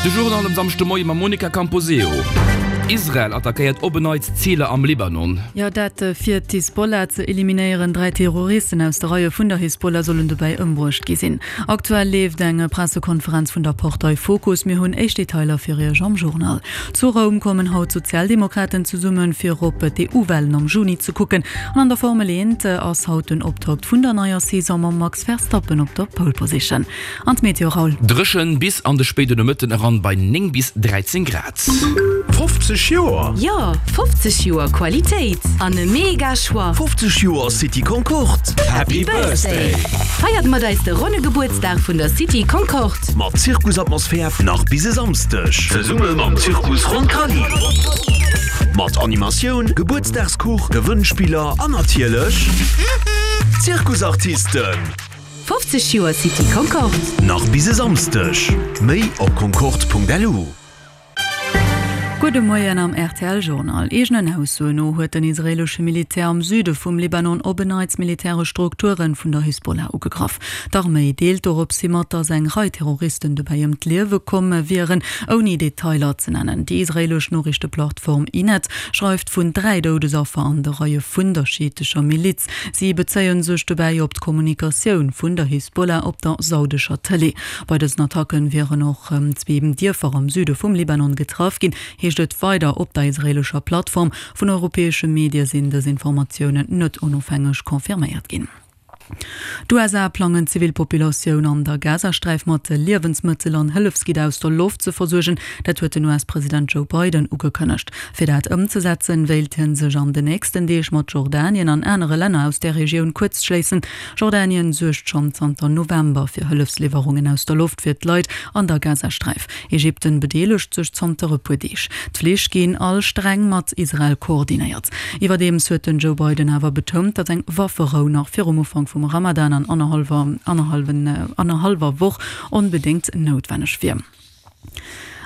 De Journal um Samschdemoie mam Monica Camposeo. Israel attackéiert op en Neits Ziler am Libanon. Jo, dat fir d'Hisbollah ze eliminéieren. 3 Terroristen aus de Reie vun der Hisbollah sollen dobäi ëmbruecht gi sinn. Aktuell leeft eng Pressekonferenz vun der Partei Fokus. Mir hunn éischt Detailer fir Iech am Journal. Zu Roum kommen haut d'Sozialdemokraten zesummen, fir op d'EU-Walen am Juni ze kucken. An an der Formel 1 ass haut den Optakt vun der neier Saison mam Max Verstappen op der Pole Position. An d'Meteo, Raoul? Dréchen bis an de spéiden Nomëtten eran bei 9 bis 13 Grad. 50 Joer? Jo, 50 Joer Qualitéit an e mega Choix! 50 Joer City Concorde! Happy Birthday! Feiert mat eis de ronne Gebuertsdag vun der City Concorde! Mat Zirkusatmosphär nach bis e Samsdeg! Zesumme mam Zirkus Roncalli! Mat Animatioun, Gebuertsdagskuch, Gewënnspiller an natierlech Zirkusartisten! 50 Joer City Concorde. Nach bis e Samsdeg. Méi op concorde.lu. Gudde Moien am rtl Journal. Eegenen Aussoen no huet den israeelesche Militär am Süde vum Libanon op en Neits militäresch Strukture vun der Hisbollah ugegraff. D'Arméi deelt dorops hi mat, datt eng Rei Terroristen dobäi ëm d'Liewe komm wieren, ouni Detailer ze nennen. Déi israeelesch Noriichteplattform Ynet schreift vun 3 Doudesaffer an de Reie vun der schiitescher Miliz. Si bezéie sech dobäi op d'Kommunikatioun vun der Hisbollah op der saudescher Tëlee. Bei dësen Attacken wieren och zwee Dierfer am Süde vum Libanon getraff ginn, heescht et weider op der israeelescher Plattform. Vun europäesche Medie sinn dës Informatiounen net onofhängeg confirméiert ginn. D'USA plangen d'Zivilpopulatioun an der Gazasträif mat Liewensmëttel an Hëllefsgidder aus der Loft ze versuergen. Dat huet den US-President Joe Biden ugekënnegt. Fir dat ëmzesetzen, wéilt hie sech an den nächsten Deeg mat Jordanien an anere Länner aus där Regioun kuerzschléissen. Jordanien suergt schonn zanter November fir Hëllefsliwwerungen aus der Loft fir d'Leit an der Gazasträif. Ägypten bedeelegt sech zanter e puer Deeg. D'Flich ginn all streng mat Israel koordinéiert. Iwwerdeems huet den Joe Biden awer betount, datt eng Wafferou nach virum Ufank vum Ramadan an annerhallwer Woch onbedéngt noutwenneg wier.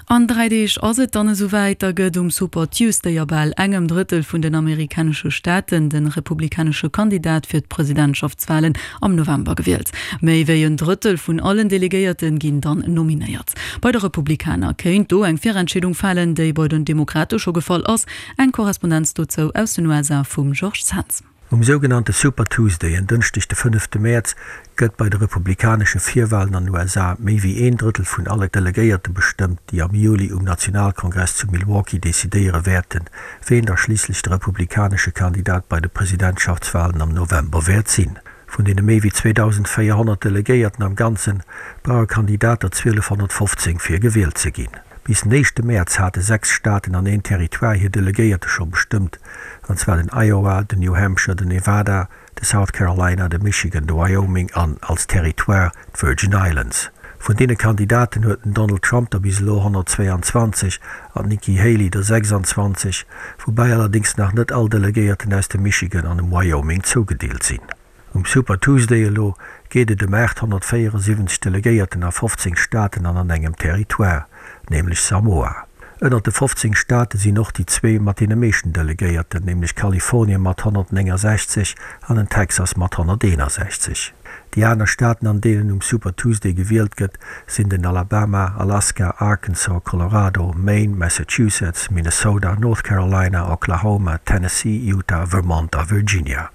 An 3 Deeg ass et dann esou wäit, da gëtt um Super Tuesday a bal engem Drëttel vun den amerikanesche Staaten de republikanesche Kandidat fir d'Presidentschaftswalen am November gewielt. Méi wéi en Drëttel vun allen Delegéierte ginn dann nominéiert. Bei de Republikaner kéint do eng Virentscheedung falen, déi bei den Demokrate scho gefall ass. Eng Korrespondenz dozou aus den USA vum Georges Zens. Um sougenannte Super Tuesday, en Dënschdeg de fënnefte Mäerz, gëtt bei de republikanesche Virwalen an den USA méi wéi een Drëttel vun alle Delegéierte bestëmmt, déi am Juli um Nationalkongress zu Milwaukee decidéiere wäerten, ween da schliisslech de republikanesche Kandidat bei de Presidentschaftswalen am November wäert sinn. Vun deene méi wéi 2.400 Delegéierten am Ganzen, brauche Kandidat der 1.215 fir gewielt ze ginn. Bis den éischte Mäerz hate 6 Staaten an een Territoire hir Delegéierte scho bestëmmt, an zwar den Iowa, den New Hampshire, den Nevada, de South Carolina, de Michigan, de Wyoming an, als Territoire, d'Virgin Islands. Vun deene Kandidaten huet den Donald Trump der bis elo 122 an d'Nikki Haley der 26, woubäi allerdéngs nach net all Delegéierten aus dem Michigan an dem Wyoming zougedeelt sinn. Um Super Tuesday elo geet et ëm 874 Delegéierten a 15 Staaten an an engem Territoire, nämlech Samoa. Ënnert de 15 Staate sinn och déi zwee mat deene meeschten Delegéierten, nämlech Kalifornien mat 169 an den Texas mat 161. Déi aner Staaten, an deenen um Super Tuesday gewielt gëtt, sinn den Alabama, Alaska, Arkansas, Colorado, Maine, Massachusetts, Minnesota, North Carolina, Oklahoma, Tennessee, Utah, Vermont a Virginia.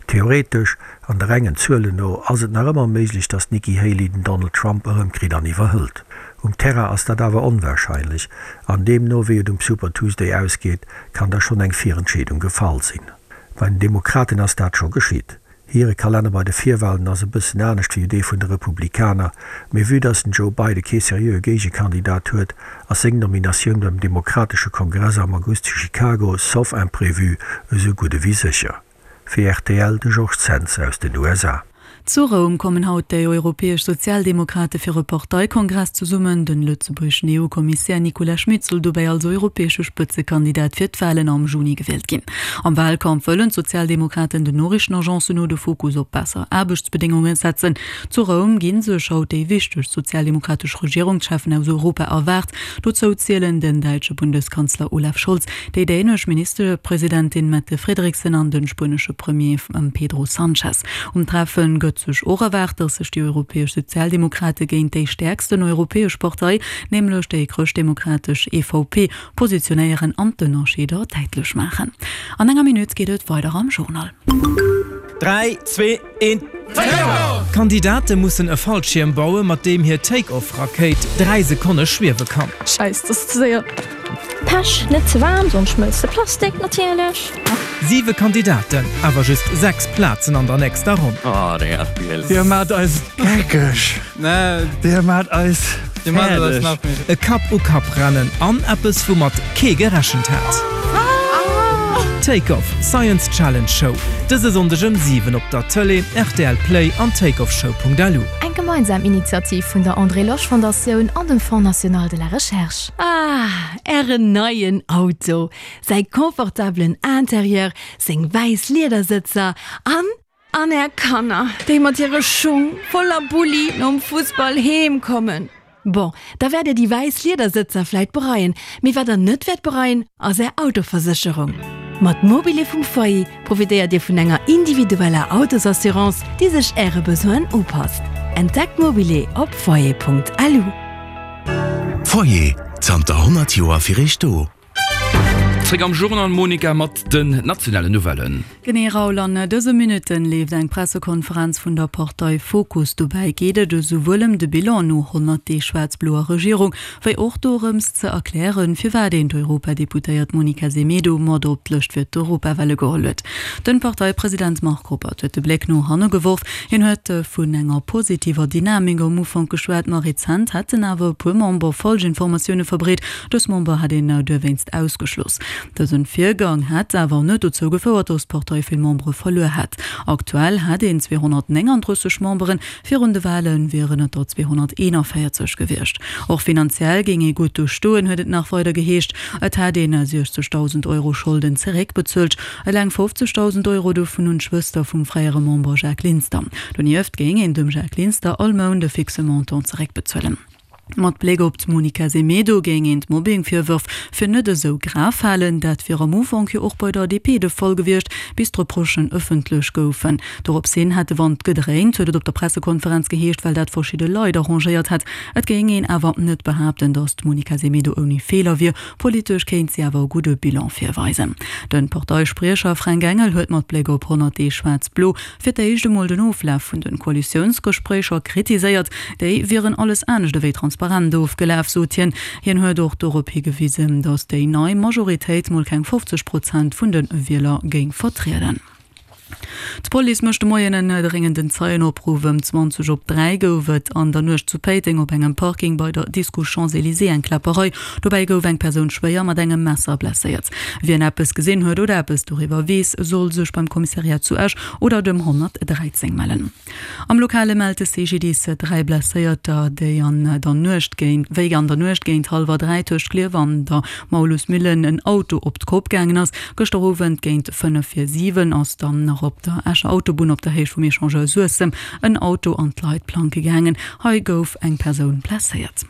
Theoretesch, an de rengen Zuelen no, ass et nach ëmmer méiglech, datt d'Nikki Haley den Donald Trump erëmkritt an iwwerhëlt. Um Terrain ass dat awer onwarscheinlech, an deemno wéi et um Super Tuesday ausgeet, kann da schonn eng Virentscheedung gefall sinn. Bei den Demokraten ass dat scho geschitt. Hire Kalenner bei de Virwalen ass e bëssen anescht wéi dee vun de Republikaner, mee vue datt den Joe Biden kee seriöe Géigekandidat huet, ass seng Nominatioun beim demokratesche Kongress am August zu Chicago, sauf imprévu, esou gutt ewéi sécher. Fir rtl de Georges Zens aus den USA. Zu Roum kommen haut déi europäesch Sozialdemokrate fir e Parteikongress zesummen. Den lëtzebuergeschen EU-Kommissär Nicolas Schmit soll dobäi als europäesche Spëtzekandidat fir d'Walen am Juni gewielt ginn. Am Walkampf wëllen d'Sozialdemokraten den Noriichtenagencen no de Fokus op besser Aarbechtsbedéngunge setzen. Zu Roum gi sech haut déi wichtegst sozialdemokratesch Regierungscheffen aus Europa erwaart. Dozou zielen den däitsche Bundeskanzler Olaf Scholz, déi dänesch Ministerpresidentin Mette Frederiksen an de spuenesche Premier Pedro Sanchez. Um Treffe gëtt. huet sech och erwaart, datt sech déi europäesch Sozialdemokrate géint déi stäerksten europäesch Partei, nämlech déi chrëschtdemokratesch EVP, positionéieren an d'Ënnerscheeder däitlech maachen. An enger Minutt geet et weider am Journal. 3, 2, 1, Take-Off! D'Kandidate mussen e Fallschierm baue mat deem hir Take-Off-Rakéit 3 Sekonne schwiewe kann. Scheiss, das ass ze séier. Pech, net ze waarm, soms schmëlzt de Plastik natierlech. Siwe Kandidaten, awer just 6 Plazen an der nächster Ronn. Oh, deng FPL. Dir maacht eis geckeg. Dir maacht eis fäerdeg. E Kapp-u-Kapp-Rennen an eppes, woumat kee gerechent hat. Take Off, Science Challenge Show, dëse Sonndeg ëm 7 op der Tëlee, rtl Play an takeoffshow.lu. Eng gemeinsam Initiativ vun der André Losch Fondatioun an dem Fonds National de la Recherche. Ah, Ären neien Auto! Säi confortabelen Interieur, seng wäiss Liedersëtzer an. An är Kanner, déi mat hire Schung voller Bulli nom Fussball heem kommen. Bon, da wäert dir déi wäiss Liedersëtzer vläit bereien, mee wat der net wäert bereien, ass är Autoversécherung. Mat Mobile vum Foyer profitéiert dir vun enger individueller Autosassurance, déi sech äre Besoinen upasst. Entdeckt Mobile op foyer.lu. Foyer, zanter 100 Joer fir iech do. Zréck am Journal Monica mat den nationalen Nouvellen. Genee Raoul, an dëse Minutten leeft eng Pressekonferenz vun der Partei Fokus. Dobäi geet et esouwuel ëm de Bilan no 100 Deeg schwaarz-bloer Regierung, wéi och dorëms ze erklären, firwat een d'Europadeputéiert Monica Semedo mat op d'Lëscht fir d'Europawale geholl huet. Den Parteipresident Marc Ruppert huet de Bléck no hanne geworf. Hien huet vun enger positiver Dynamik am Ufank geschwat, ma rezent hätten awer e puer Member falsch Informatioune verbreet, Dës Member hätt een duerwéinst ausgeschloss. Dësen Virgang hätt awer net dozou gefouert, datt d'Partei vill Membere verluer hätt. Aktuell hätt een 239 Memberen, virun de Wale wieren et der 241 gewiescht. Och finanziell géing ee gutt do stoen, huet et nach weider geheescht. Et hätt een 60.000 Euro Scholden zeréckbezuelt, eleng 50.000 Euro dovun un d'Schwëster vum fréiere Member Jacques Linster. Donieft géing een dem Jacques Linster all Mount e fixe Montant zeréckbezuelen. Mat Bléck op d'Monica Semedo géing een d'Mobbing-Virwërf fir net esou grav halen. Dat wier am Ufank jo och bei der DP de Fall gewiescht, bis d'Reprochen ëffentlech goufen. Dorops hin hätt de Wand gedréint, huet et op der Pressekonferenz geheescht, well dat verschidde Leit arrangéiert hätt. Et géing een awer net behaapten, datt d'Monica Semedo ouni Feeler wier. Politesch kéint si awer e gudde Bilan virweisen. De Parteispriecher Fränk Engel huet mat Bléck op 100 Deeg Schwaarz-Blo fir d'éischt emol den Oflaf vun de Koalitiounsgespréicher kritiséiert. Déi wieren alles anescht ewéi transparent ofgelaf, sot hien. Hien huet och dorop higewisen, datt déi nei Majoritéit mol keng 50 Prozent vun de Wieler géing vertrieden. D'Police mécht de Moien en dréngenden Zeienopruff. Ëm 20 op 3 gouf et an der Nuecht zu Péiteng op engem Parking bei der Disco Champs-Elysées eng Kläpperei. Dobäi gouf eng Persoun schwéier mat engem Messer blesséiert. Wien eppes gesinn huet oder eppes doriwwer weess, soll sech beim Kommissariat zu Esch oder dem 113 mellen. Am Lokale mellt de CGDIS 3 Blesséierter, déi an der Nuecht géint wéi an der Nuecht géint hallwer 3 tëscht Klierf an der Maulusmillen en Auto op d'Kopp gaangen ass. Gëschter Owend géint 5 vir 7 ass dann nach op der Escher Autobunn op der Héicht vum Echangeur Suessem en Auto an d'Leitplanke gaangen. Hei gouf eng Persoun blesséiert.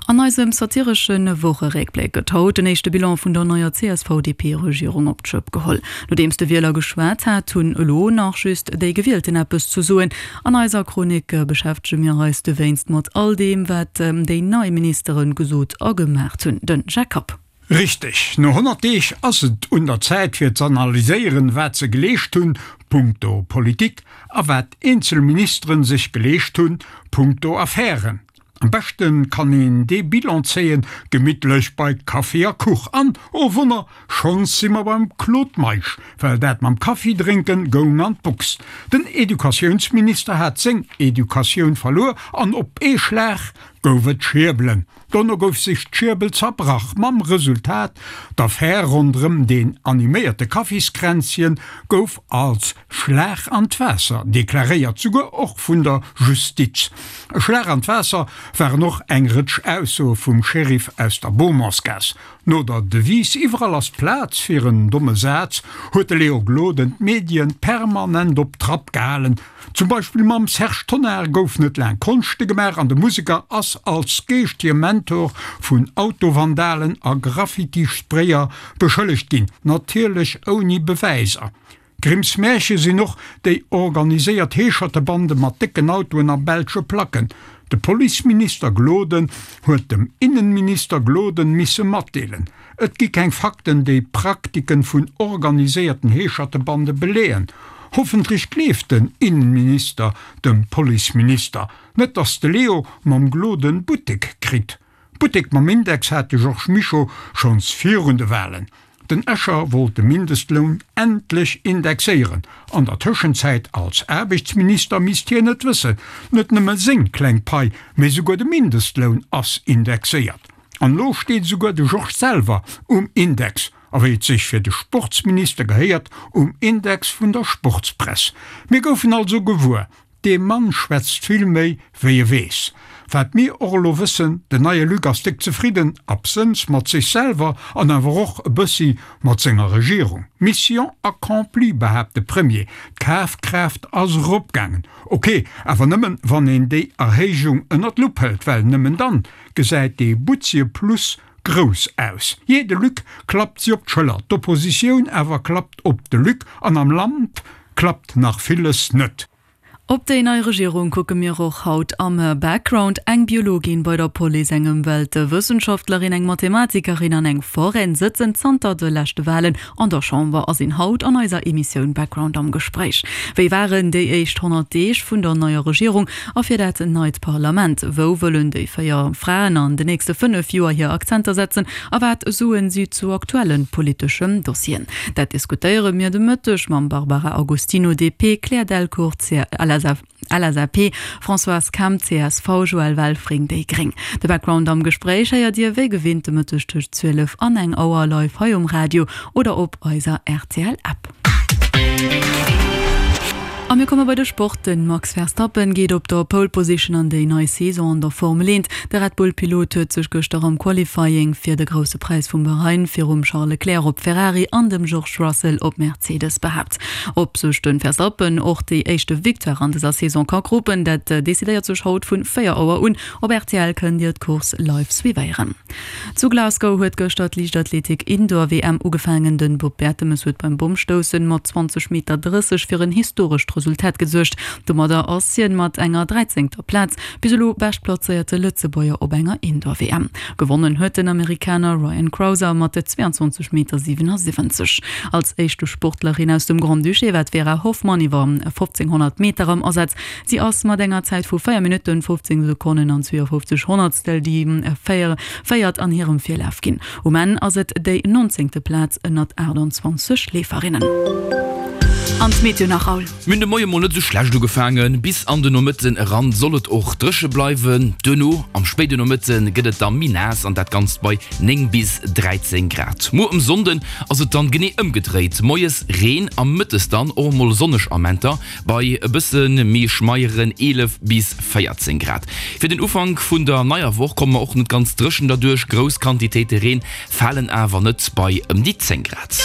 An eisem satiresche Wocheréckbléck gëtt haut den éischte Bilan vun der neier CSV-DP-Regierung op d'Schëpp geholl. Nodeems de Wieler geschwat hat, hunn elo nach just déi Gewielten eppes ze soen. An eiser Chronik beschäftege mir eis dowéinst mat all deem, wat déi nei Ministere gesot a gemaacht hunn. De Jacques Kapp. Richteg, no 100 Deeg ass et un der Zäit fir z'analyséieren, wat se geleescht hunn, punkto Politik, a wat eenzel Ministeren sech geleescht hunn, punkto Affären. Am beschte kann een dee Bilan zéien, gemittlech bei Kaffi a Kuch. An, oh Wonner, schonns si mer beim Claude Meisch, well dat mam Kaffi drénken goung an d'Box. Den Educatiounsminister hat seng Educatioun verluer an op ee Schlag gouf et Schierbelen. Dono gouf sech d'Schierbel zerbrach, mam Resultat, d'Affär ronderëm deen animéierte Kaffiskränzchen gouf als Schlag an d'Waasser deklaréiert, souguer och vun der Justiz. E Schlag an d'Waasser waren och eng Rëtsch Aussoe vum Sheriff aus der Beaumontsgaass. No der Devise Iwwerall ass Plaz fir en domme Saz huet de Léo Gloden d'Medien permanent op Trapp gehalen. Zum Beispill mam Serge Tonnar gouf net laang Konschte gemaach an de Museker ass als geeschtege Mentor vun Autovandalen a Graffiti-Sprayer beschëllegt ginn, natierlech ouni Bewäiser. Grimms Märche sinn och déi organiséiert Heeschertebande mat décken Autoen a belsche Placken. De Policeminister Gloden huet dem Innenminister Gloden misse matdeelen, et gi keng Fakten déi Praktiken vun organiséierten Heeschertebande beleeën. Hoffentlech gleeft den Innenminister dem Policeminister. Net dass de Leo mam Gloden Buttek kritt. Buttek mam Index hat de Georges Mischo schonns virun de Walen. Den Escher wollt de Mindestloun endlech indexéieren. An der Tëschenzäit als Aarbechtsminister misst hien et wëssen, net nëmme seng kleng Pai, mee souguer de Mindestloun ass indexéiert. An elo steet esouguer de Georges selwer um Index, a wéi et sech fir de Sportsminister gehéiert, um Index vun der Sportspress. Mir goufen also gewuer, Dee Mann schwätzt vill méi wéi e weess. Wat mir och elo wëssen, den neie Luc ass déck zefridden, absënns mat sech selwer an awer och e bëssi mat senger Regierung. Mission accomplie, behaapt de Premier, d'Kafkraaft ass eropgaangen. Ok, awer nëmmen wann een déi Erhéijung ënner d'Lupp hëlt, well nëmmen dann gesäit dee butzie Plus grouss aus. Jee, de Luc klappt si op d'Schëller, d'Oppositioun awer klappt op de Luc an am Land klappt nach villes net. Op déi nei Regierung kucke mir och haut am Background. Eng Biologin bei der Police, eng Ëmweltwëssenschaftlerin, eng Mathematikerin an eng Foraine sëtzen zanter de leschte Walen an der Chamber a sinn haut an eiser Emissioun Background am Gespréich. Wéi waren déi éischt 100 Deeg vun der neier Regierung a fir dat neit Parlament? Wou wëllen déi 4 Fraen an de nächste 5 Joer hir Akzenter setzen a wat soen si zu aktuelle politeschen Dossieren? Dat diskutéiere mir de Mëtteg mam Barbara Agostino, DP, Claire Delcourt, LSAP, Françoise Kemp, csv, Joël Welfring, déi gréng. De Background am Gespréich héiert Dir wéi gewinnt de Mëtteg tëscht 12 an eng Auer live hei um Radio oder op eiser RTL-App. A mir komme bei de Sport. De Max Verstappen geet op der Pole Position an déi nei Saison an der Formel 1. De Red Bull Pilot huet sech gëschter am Qualifying fir de Grousse Präis vum Bahrain virum Charles Leclerc op Ferrari an dem George Russell op Mercedes behaapt. Ob sech de Verstappen och déi éischte Victoire an dëser Saison ka kropen, dat decidéiert sech haut vun 4 Auer un. Op rtl kënnt Dir d'Course live suivéieren. Zu Glasgow huet gëschter d'Liichtathletik Indoor WM ugefaangen. Den Bob Bertemes huet beim Bommstoussen mat 20 Meter 30 fir en historescht Resultat gesuergt. Domadder ass hien mat enger dräizéngter Plaz bis elo beschtplazéierte Lëtzebuerger op enger Indoor WM. Gewonnen huet den Amerikaner Ryan Crouser mat 22 Meter 77. Als éischte Sportlerin aus dem Grand-Duché war d'Vera Hoffmann iwwer 1500 Meter am Asaz. Si ass mat enger Zäit vu 4 Minutten, 15 Sekonnen an 52 Honnertstel déi Véiert an hirem Virlaf ginn. Um Enn ass et déi nonzéngte Plaz ënnert 28 Leeferinnen. An d'Meteo nach, Raoul? Mir hunn de Moie mol net esou schlecht ugefaangen, bis an de Nomëtten eran soll et och dréche bleiwen. Duerno am spéide Nomëtte gëtt et da méi naass an dat Ganzt bei 9 bis 13 Grad. Muer um Sonnden ass et dann genee ëmgedréit, moies Reen a mëttes dann och mol sonneg Amenter. Bei e bësse méi schmeieren 11 bis 14 Grad. Fir den Ufank vun der neier Woch komme mer och net ganz dréchen derduerch, grouss Quantitéite Reen falen awer net bei ëm déi 10 Grad.